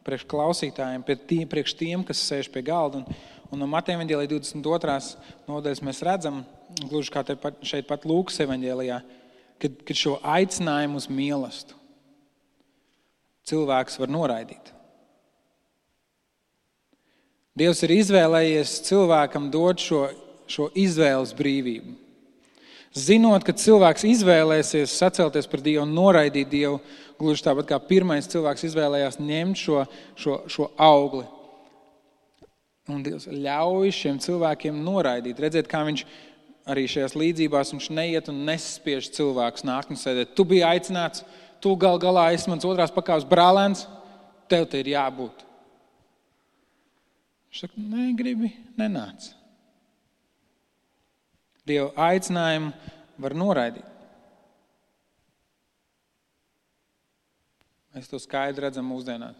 priekš klausītājiem, priekš tiem, kas sēž pie galda. Un no Mateja evaņģēlijā 22. nodaļas mēs redzam, gluži kā šeit pat Lūkas evaņģēlijā, kad šo aicinājumu uz mīlestību cilvēks var noraidīt. Dievs ir izvēlējies cilvēkam dot šo izvēles brīvību. Zinot, ka cilvēks izvēlēsies sacelties par Dievu un noraidīt Dievu, gluži tāpat kā pirmais cilvēks izvēlējās ņemt šo augli. Un Dievs ļauj šiem cilvēkiem noraidīt. Redzēt, kā viņš arī šajās līdzībās viņš neiet un nespiež cilvēkus nākt un sēdēt. Tu biji aicināts, tu galā esi mans otrās pakāpes brālēns, tev te ir jābūt. Viņš saka, negribi, nenāc. Dieva aicinājumu var noraidīt. Mēs to skaidri redzam mūsdienās.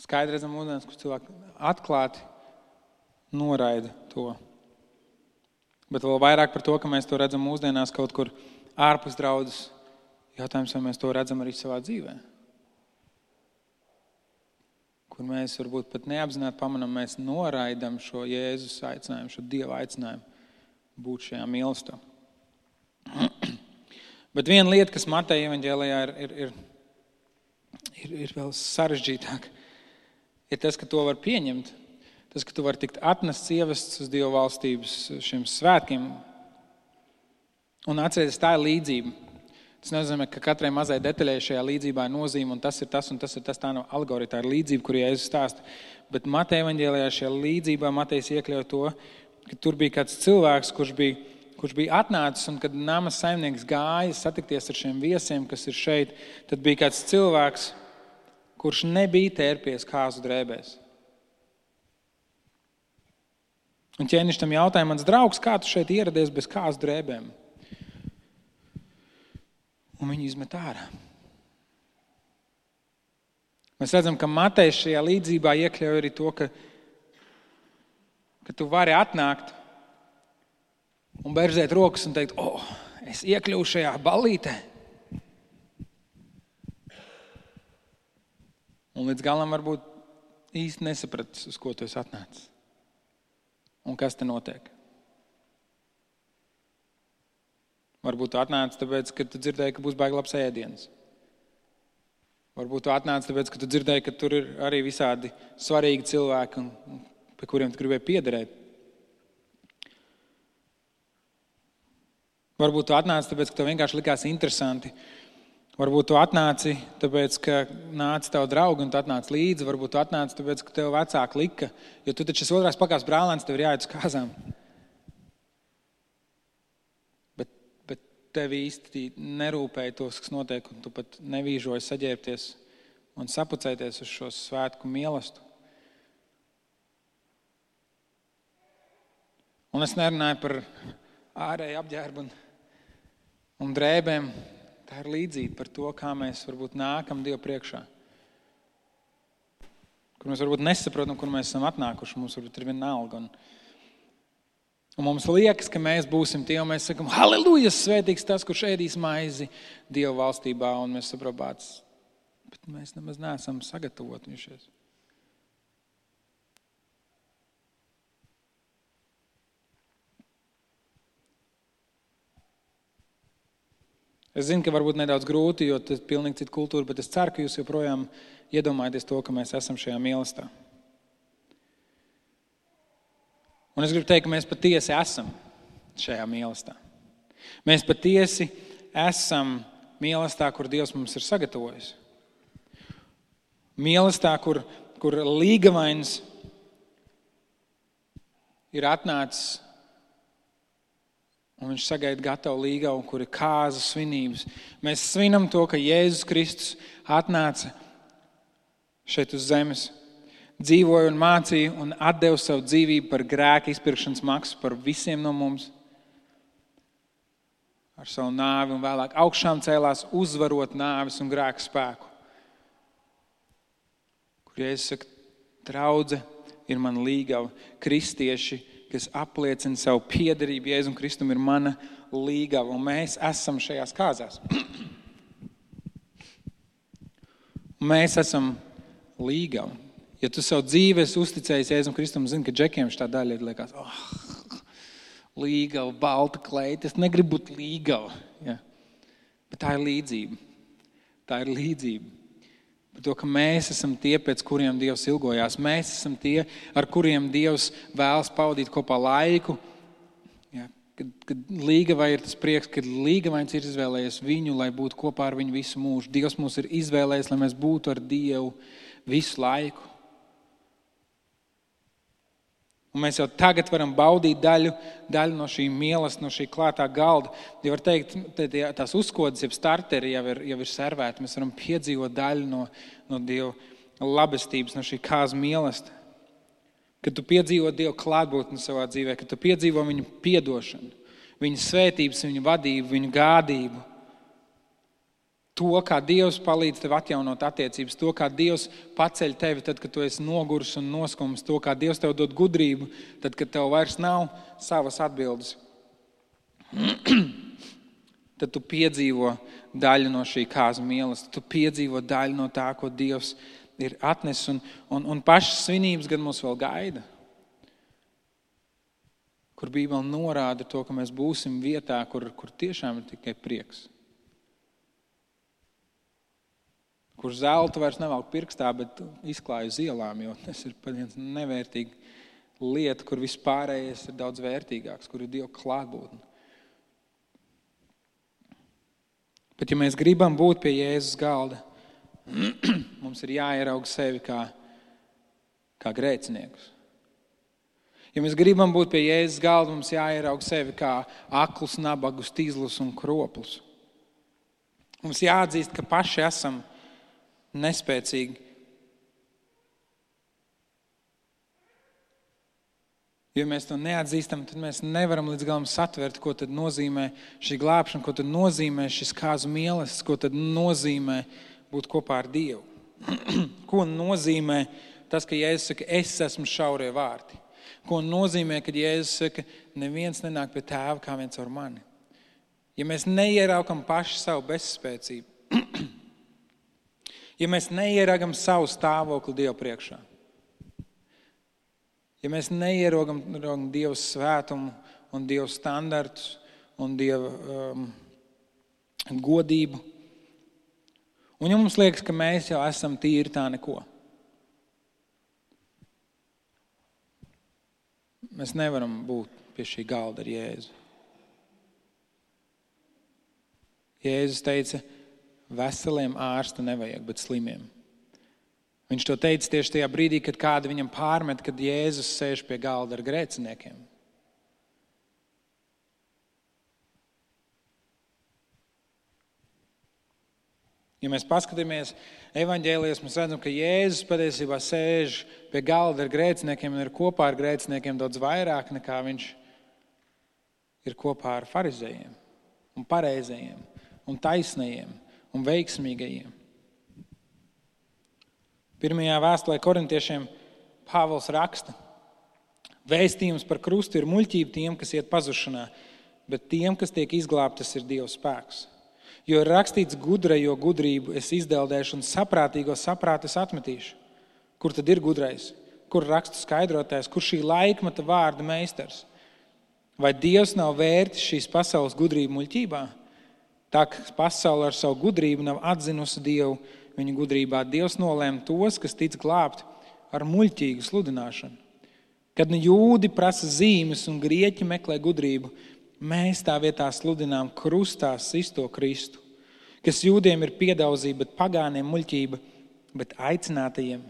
Skaidri redzam mūsdienās, kur cilvēki atklāti noraida to. Bet vēl vairāk par to, ka mēs to redzam mūsdienās kaut kur ārpus draudzes. Jautājums, vai mēs to redzam arī savā dzīvē. Kur mēs varbūt pat neapzināti pamanām, mēs noraidam šo Jēzus aicinājumu, šo Dieva aicinājumu būt šajā mīlestībā. Bet viena lieta, kas Mateja evaņģēlijā ir vēl sarežģītāk, ir tas, ka to var pieņemt. Tas, ka tu vari tikt atnests, ievests uz Dieva valstības šiem svētkiem. Un atcerieties, tā ir līdzība. Tas nozīmē, ka katrai mazai detaļai šajā līdzībā ir nozīme, un tas ir tas, un tas ir tas. Tā nav alegorija, tā ir līdzība, kur Jēzus stāsta. Bet Mateja evaņģēlijā šajā līdzībā Matejs iekļauj to, ka tur bija kāds cilvēks, kurš bija atnācis, un kad nama saimnieks gāja satikties ar šiem viesiem, kas ir šeit, tad bija kāds cilvēks, kurš nebija tērpies kāzu drēbēs. Un ķēniņš tam jautāja, mans draugs, kā tu šeit ieradies bez kāzu drēbēm? Un viņi izmet ārā. Mēs redzam, ka Matejs šajā līdzībā iekļauj arī to, ka tu vari atnākt un berzēt rokas un teikt, es iekļuvu šajā ballītē. Un līdz galam varbūt īsti nesapratis, uz ko tu esi atnācis. Un kas te notiek? Varbūt tu atnāc tāpēc, ka tu dzirdēji, ka būs baigi labs ēdiens. Varbūt tu atnāc tāpēc, ka tu dzirdēji, ka tur ir arī visādi svarīgi cilvēki, pie kuriem tu gribēji piederēt. Varbūt tu atnāc tāpēc, ka tev vienkārši likās interesanti. Varbūt tu atnāci tāpēc, ka nāca tavu draugu un tu atnāc līdzi. Varbūt tu atnāci tāpēc, ka tev vecāki lika, jo tu taču esi otrās pakāpes brālēns, tev ir jāiet uz kāzām. Tev īsti nerūpēja tos, kas notiek, un tu pat nevīžoji saģērbties un sapucēties uz šo svētku mīlestību. Un es nerunāju par ārēju apģērbu un drēbēm. Tā ir līdzība par to, kā mēs varbūt nākam Dievu priekšā. Kur mēs varbūt nesaprotam, kur mēs esam atnākuši. Mums varbūt ir vienalga. Un mums liekas, ka mēs būsim tie, un mēs sakam, halleluja, svētīgs tas, kurš ēdīs maizi Dieva valstībā, un mēs saprotam, bet mēs nemaz neesam sagatavojušies. Es zinu, ka varbūt nedaudz grūti, jo tas ir pilnīgi cita kultūra, bet es ceru, ka jūs joprojām iedomājaties to, ka mēs esam šajā mīlestībā. Un es gribu teikt, ka mēs patiesi esam šajā mīlestībā. Mēs patiesi esam mīlestībā, kur Dievs mums ir sagatavojis. Mīlestībā, kur līgavains ir atnācis un viņš sagaida gatavu līgavu, kur ir kāzu svinības. Mēs svinam to, ka Jēzus Kristus atnāca šeit uz zemes, dzīvoja un mācīja un atdeva savu dzīvību par grēka izpirkšanas maksu par visiem no mums. Ar savu nāvi un vēlāk augšām cēlās uzvarot nāvis un grēka spēku. Kur Jēzus saka, draudze ir man līgava, kristieši, kas apliecina savu piederību Jēzum Kristum, ir mana līgava, un mēs esam šajās kāzās. Mēs esam līgava. Ja tu savu dzīvi esi uzticējis Jēzum Kristum, zini, ka džekiem šitā daļa ir liekas, līgava, balta kleita, es negribu būt līgava. Ja. Bet tā ir līdzība. Tā ir līdzība. Par to, ka mēs esam tie, pēc kuriem Dievs ilgojās. Mēs esam tie, ar kuriem Dievs vēlas pavadīt kopā laiku. Ja, kad līgavai ir tas prieks, kad līgavains ir izvēlējies viņu, lai būtu kopā ar viņu visu mūžu. Dievs mūs ir izvēlējies, lai mēs būtu ar Dievu visu laiku. Un mēs jau tagad varam baudīt daļu no šī mīlestības, no šī klātā galda. Ja var teikt, tās uzkodas, jeb starteri jau ir servēti. Mēs varam piedzīvot daļu no Dieva labestības, no šī kāzu mīlestības. Kad tu piedzīvo Dieva klātbūtni savā dzīvē, kad tu piedzīvo viņu piedošanu, viņa svētības, viņa vadību, viņa gādību. To, kā Dievs palīdz tev atjaunot attiecības, to, kā Dievs paceļ tevi tad, kad tu esi noguris un noskums, to, kā Dievs tev dod gudrību, tad, kad tev vairs nav savas atbildes. Tad tu piedzīvo daļu no šī kāzu mīlestības, tu piedzīvo daļu no tā, ko Dievs ir atnesis, un pašas svinības gan mūs vēl gaida. Kur Bībele norāda to, ka mēs būsim vietā, kur tiešām ir tikai prieks. Kur zeltu vairs nevelk pirkstā, bet izklāj uz ielām, jo tas ir viens nevērtīga lieta, kur vispārējais ir daudz vērtīgāks, kur ir Dieva klātbūtne. Bet ja mēs gribam būt pie Jēzus galda, mums ir jāierauga sevi kā grēciniekus. Ja mēs gribam būt pie Jēzus galda, mums jāierauga sevi kā aklus, nabagus, tīzlus un kroplus. Mums jāatzīst, ka paši esam nespēcīgi. Ja mēs to neatzīstam, tad mēs nevaram līdz galam satvert, ko tad nozīmē šī glābšana, ko tad nozīmē šis kāzu mīlestības, ko tad nozīmē būt kopā ar Dievu. Ko nozīmē tas, ka Jēzus saka, es esmu šaurie vārti. Ko nozīmē, kad Jēzus saka, neviens nenāk pie tēva kā viens ar mani. Ja mēs neieraukam paši savu bezspēcību, ja mēs neieragam savu stāvokli Dieva priekšā, ja mēs neierogam Dieva svētumu un Dieva standartus un Dieva godību, un ja mums liekas, ka mēs jau esam tīri tā neko, mēs nevaram būt pie šī galda ar Jēzu. Jēzus teica, veseliem ārsta nevajag, bet slimiem. Viņš to teica tieši tajā brīdī, kad kāda viņam pārmet, kad Jēzus sēž pie galda ar grēciniekiem. Ja mēs paskatāmies evaņģēlijos, mēs redzam, ka Jēzus patiesībā sēž pie galda ar grēciniekiem un ir kopā ar grēciniekiem daudz vairāk nekā viņš ir kopā ar farizējiem un pareizajiem un taisnajiem un veiksmīgajiem. Pirmajā vēstulē korintiešiem Pāvils raksta, vēstījums par krustu ir muļķība tiem, kas iet pazušanā, bet tiem, kas tiek izglābtas, ir Dieva spēks. Jo ir rakstīts gudrajo gudrību es izdeldēšu un saprātīgo saprātu es atmetīšu. Kur tad ir gudrais? Kur rakstu skaidrotājs? Kur šī laikmeta vārda meistars? Vai Dievs nav vērtis šīs pasaules gudrību muļķībā? Tā, ka pasaule ar savu gudrību nav atzinusi Dievu viņa gudrībā. Dievs nolēma tos, kas tic glābt, ar muļķīgu sludināšanu. Kad nu jūdi prasa zīmes un grieķi meklē gudrību, mēs tā vietā sludinām krustā sisto Kristu, kas jūdiem ir piedauzība, bet pagāniem muļķība, bet aicinātajiem,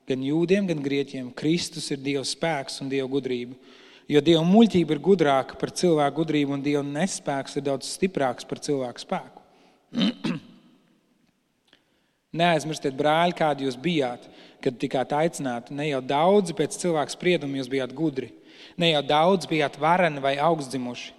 gan jūdiem, gan grieķiem, Kristus ir Dieva spēks un Dieva gudrība. Jo Dieva muļķība ir gudrāka par cilvēku gudrību, un Dieva nespēks ir daudz stiprāks par cilvēku spēku. Neaizmirstiet, brāļi, kādi jūs bijāt, kad tikāt aicināti. Ne jau daudzi pēc cilvēku sprieduma jūs bijāt gudri. Ne jau daudz bijāt vareni vai augstdzimuši.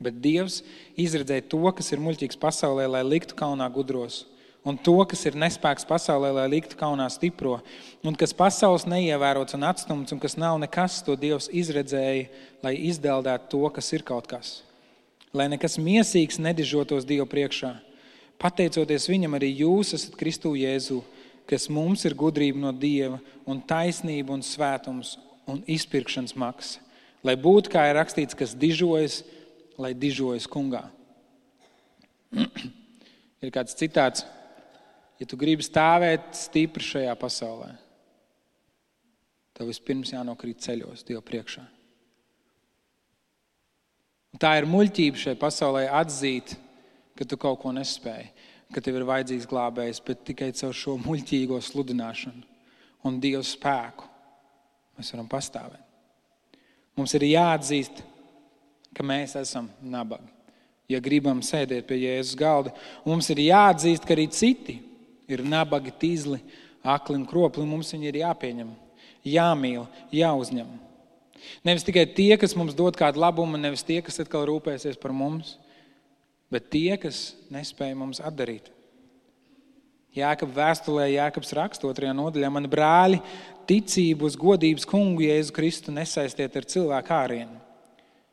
Bet Dievs izredzēja to, kas ir muļķīgs pasaulē, lai liktu kaunā gudros. Un to, kas ir nespēks pasaulē, lai liktu kaunā stipro. Un kas pasaules neievērots un atstumts, un kas nav nekas, to Dievs izredzēja, lai izdeldētu to, kas ir kaut kas. Lai nekas miesīgs nedižotos Dievu priekšā. Pateicoties viņam, arī jūs esat Kristu Jēzu, kas mums ir gudrība no Dieva un taisnība un svētums un izpirkšanas maksa. Lai būtu, kā ir rakstīts, kas dižojas, lai dižojas kungā. Ir kāds citāts, ja tu gribi stāvēt stipri šajā pasaulē, tev vispirms jānokrīt ceļos Dieva priekšā. Un tā ir muļķība šai pasaulē atzīt, ka tu kaut ko nespēji, ka tev ir vajadzīgs glābējs, bet tikai caur šo muļķīgo sludināšanu un Dieva spēku mēs varam pastāvēt. Mums ir jāatzīst, ka mēs esam nabagi, ja gribam sēdēt pie Jēzus galda. Un mums ir jāatzīst, ka arī citi ir nabagi, tīzli, akli un kropli, un mums viņi ir jāpieņem, jāmīl, jāuzņem. Nevis tikai tie, kas mums dod kādu labumu, nevis tie, kas atkal rūpēsies par mums, bet tie, kas nespēja mums atdarīt. Jākab vēstulē, Jākabs raksta 2. nodaļā, mani brāļi, ticību uz godības kungu Jēzu Kristu nesaistiet ar cilvēku ārienu.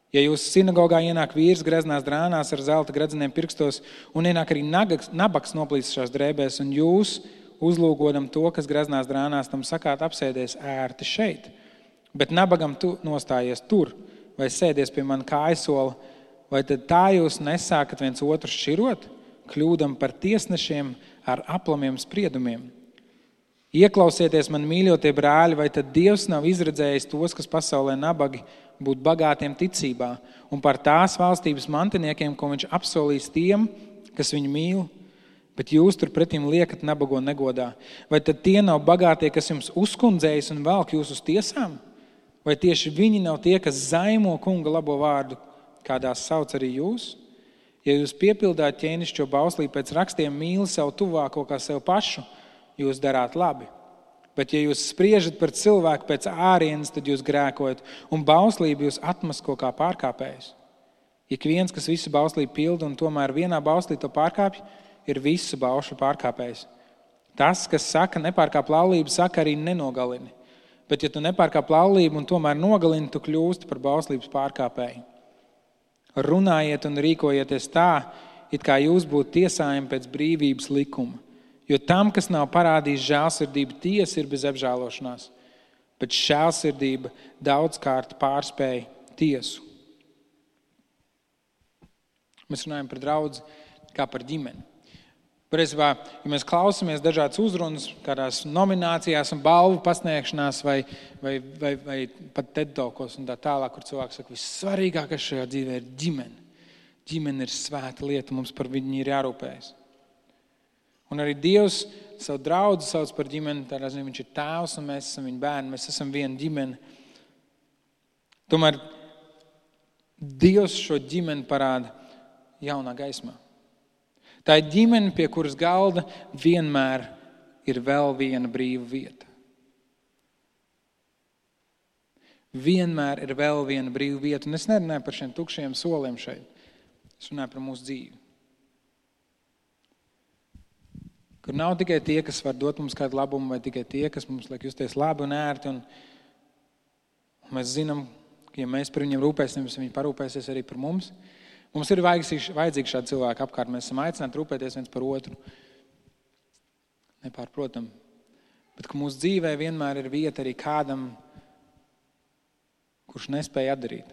Ja jūs sinagogā ienāk vīrs greznās drānās ar zelta gredzeniem pirkstos un ienāk arī nabaks noplīsušās drēbēs un jūs uzlūgodam to, kas greznās drānās, tam sakāt apsēdies ērti šeit, bet nabagam tu nostājies tur vai sēdies pie man kājasola, vai tad tā jūs nesākat viens otru šķirot, kļūdam par tiesnešiem ar aplamiem spriedumiem? Ieklausieties man, mīļotie brāļi, vai tad Dievs nav izredzējis tos, kas pasaulē nabagi, būt bagātiem ticībā un par tās valstības mantiniekiem, ko viņš apsolīs tiem, kas viņu mīl, bet jūs tur pretim liekat nabago negodā? Vai tad tie nav bagātie, kas jums uzkundzējas un velk jūs uz tiesām? Vai tieši viņi nav tie, kas zaimo kunga labo vārdu, kādās sauc arī jūs? Ja jūs piepildāt ķēnišķo bauslību pēc rakstiem mīli savu tuvāko kā sev pašu, jūs darāt labi. Bet ja jūs spriežat par cilvēku pēc ārienes, tad jūs grēkojat, un bauslību jūs atmasko kā pārkāpējus. Ik viens, kas visu bauslību pilda un tomēr vienā bauslī to pārkāpj, ir visu baušu pārkāpējs. Tas, kas saka nepārkāp laulību, saka arī nenogalini. Bet ja tu nepārkāp laulību un tomēr nogalini, tu kļūsti par bauslības pārkāpēju. Runājiet un rīkojieties tā, it kā jūs būtu tiesājumi pēc brīvības likuma. Jo tam, kas nav parādījis žēlsirdību, tiesa ir bez apžēlošanās, bet žēlsirdība daudzkārt pārspēja tiesu. Mēs runājam par draudzi kā par ģimeni. Patiesībā, ja mēs klausamies dažādas uzrunas, kādās nominācijās un balvu pasniegšanās vai pat TED-talkos un tā tālāk, kur cilvēks saka, vissvarīgākais šajā dzīvē ir ģimene. Ģimene ir svēta lieta, mums par viņu ir jārūpējas. Un arī Dievs savu draudzi sauc par ģimeni, tādā ziņā viņš ir tēvs un mēs esam viņa bērni, mēs esam viena ģimene. Tomēr Dievs šo ģimeni parāda jaunā gaismā. Tā ir ģimene, pie kuras galda vienmēr ir vēl viena brīva vieta. Vienmēr ir vēl viena brīva vieta. Un es nerunāju par šiem tukšiem soliem šeit. Es runāju par mūsu dzīvi. Kur nav tikai tie, kas var dot mums kādu labumu, vai tikai tie, kas mums liek justies labi un ērti. Un mēs zinām, ka ja mēs par viņiem rūpēsimies, viņi parūpēsies arī par mums. Mums ir vajadzīgi šādi cilvēki apkārt. Mēs esam aicināti rūpēties viens par otru. Nepārprotam. Bet ka mūsu dzīvē vienmēr ir vieta arī kādam, kurš nespēja atdarīt.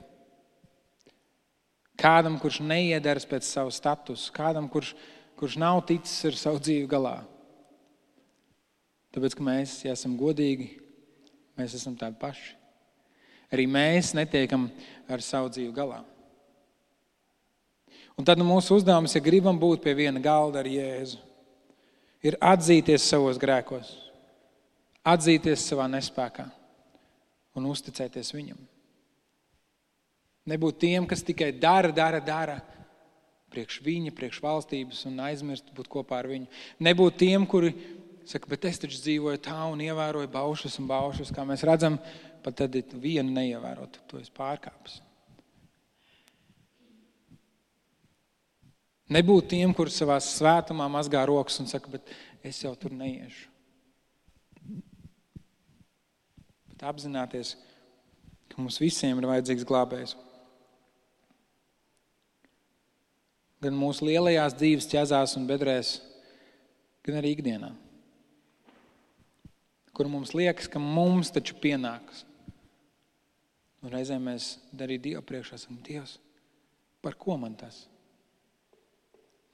Kādam, kurš neiedaras pēc savu statusu. Kādam, kurš nav ticis ar savu dzīvi galā. Tāpēc, ka mēs, ja esam godīgi, mēs esam tādi paši. Arī mēs netiekam ar savu dzīvi galā. Un tad mūsu uzdevums, ja gribam būt pie viena galda ar Jēzu, ir atzīties savos grēkos, atzīties savā nespēkā un uzticēties viņam. Nebūt tiem, kas tikai dara priekš viņa, priekš valstības un aizmirst būt kopā ar viņu. Nebūt tiem, kuri saka, bet es taču dzīvoju tā un ievēroju baušus un baušus, kā mēs redzam, pat tad vienu neievērot, to es pārkāpis. Nebūt tiem, kuri savā svētumā mazgā rokas un saka, bet es jau tur neiešu. Bet apzināties, ka mums visiem ir vajadzīgs glābējs. Gan mūsu lielajās dzīves ķezās un bedrēs, gan arī ikdienā. Kur mums liekas, ka mums taču pienākas. Un reizēm mēs arī Dievu priekšā esam, Dievs, par ko man tas?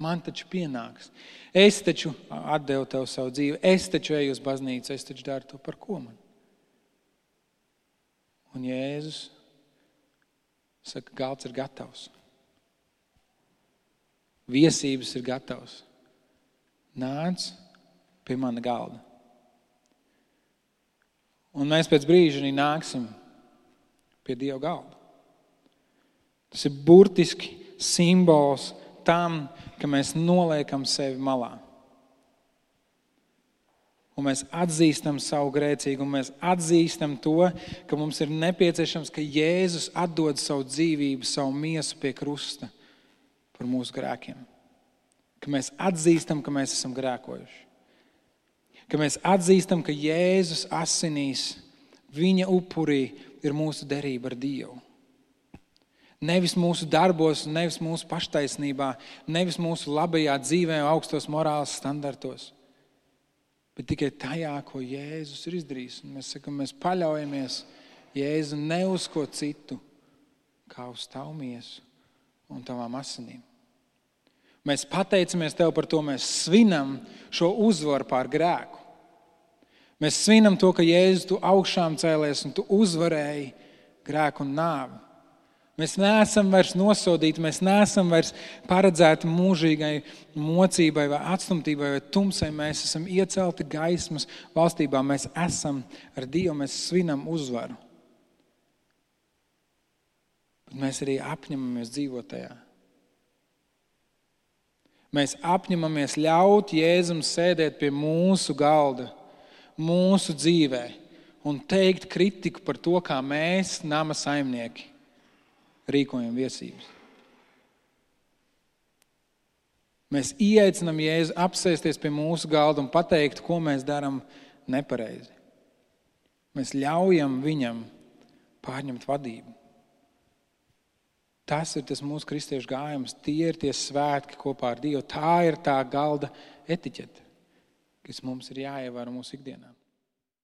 Man taču pienāks. Es taču atdevu tev savu dzīvi, es taču eju uz baznīcu, es taču daru to, par ko man? Un Jēzus saka, galds ir gatavs. Viesības ir gatavs. Nāc pie mana galda. Un mēs pēc brīža arī nāksim pie Dieva galda. Tas ir burtiski simbols tam, ka mēs noliekam sevi malā. Un mēs atzīstam savu grēcīgumu, mēs atzīstam to, ka mums ir nepieciešams, ka Jēzus atdod savu dzīvību, savu miesu pie krusta par mūsu grēkiem. Ka mēs atzīstam, ka mēs esam grēkojuši. Ka mēs atzīstam, ka Jēzus asinīs, viņa upurī ir mūsu derība ar Dievu. Nevis mūsu darbos, nevis mūsu paštaisnībā, nevis mūsu labajā dzīvē, augstos morāles standartos, bet tikai tajā, ko Jēzus ir izdarījis. Un mēs sakam, mēs paļaujamies Jēzu ne uz ko citu, kā uz tavu miesu un tavām asinīm. Mēs pateicamies tev par to, mēs svinam šo uzvaru pār grēku. Mēs svinam to, ka Jēzus, tu augšām cēlies un tu uzvarēji grēku un nāvi. Mēs neesam vairs nosodīti, mēs neesam vairs paredzēti mūžīgai mocībai vai atstumtībai vai tumsai. Mēs esam iecelti gaismas valstībā, mēs esam ar Dievu, mēs svinam uzvaru. Bet mēs arī apņemamies dzīvot tajā. Mēs apņemamies ļaut Jēzum sēdēt pie mūsu galda, mūsu dzīvē un teikt kritiku par to, kā mēs, nama saimnieki, rīkojam viesības. Mēs ieaicinām Jēzu apsēsties pie mūsu galda un pateikt, ko mēs darām nepareizi. Mēs ļaujam viņam pārņemt vadību. Tas ir tas mūsu kristiešu gājums, tie ir tie svētki kopā ar Dievu. Tā ir tā galda etiķete, kas mums ir jāievēro mūsu ikdienā.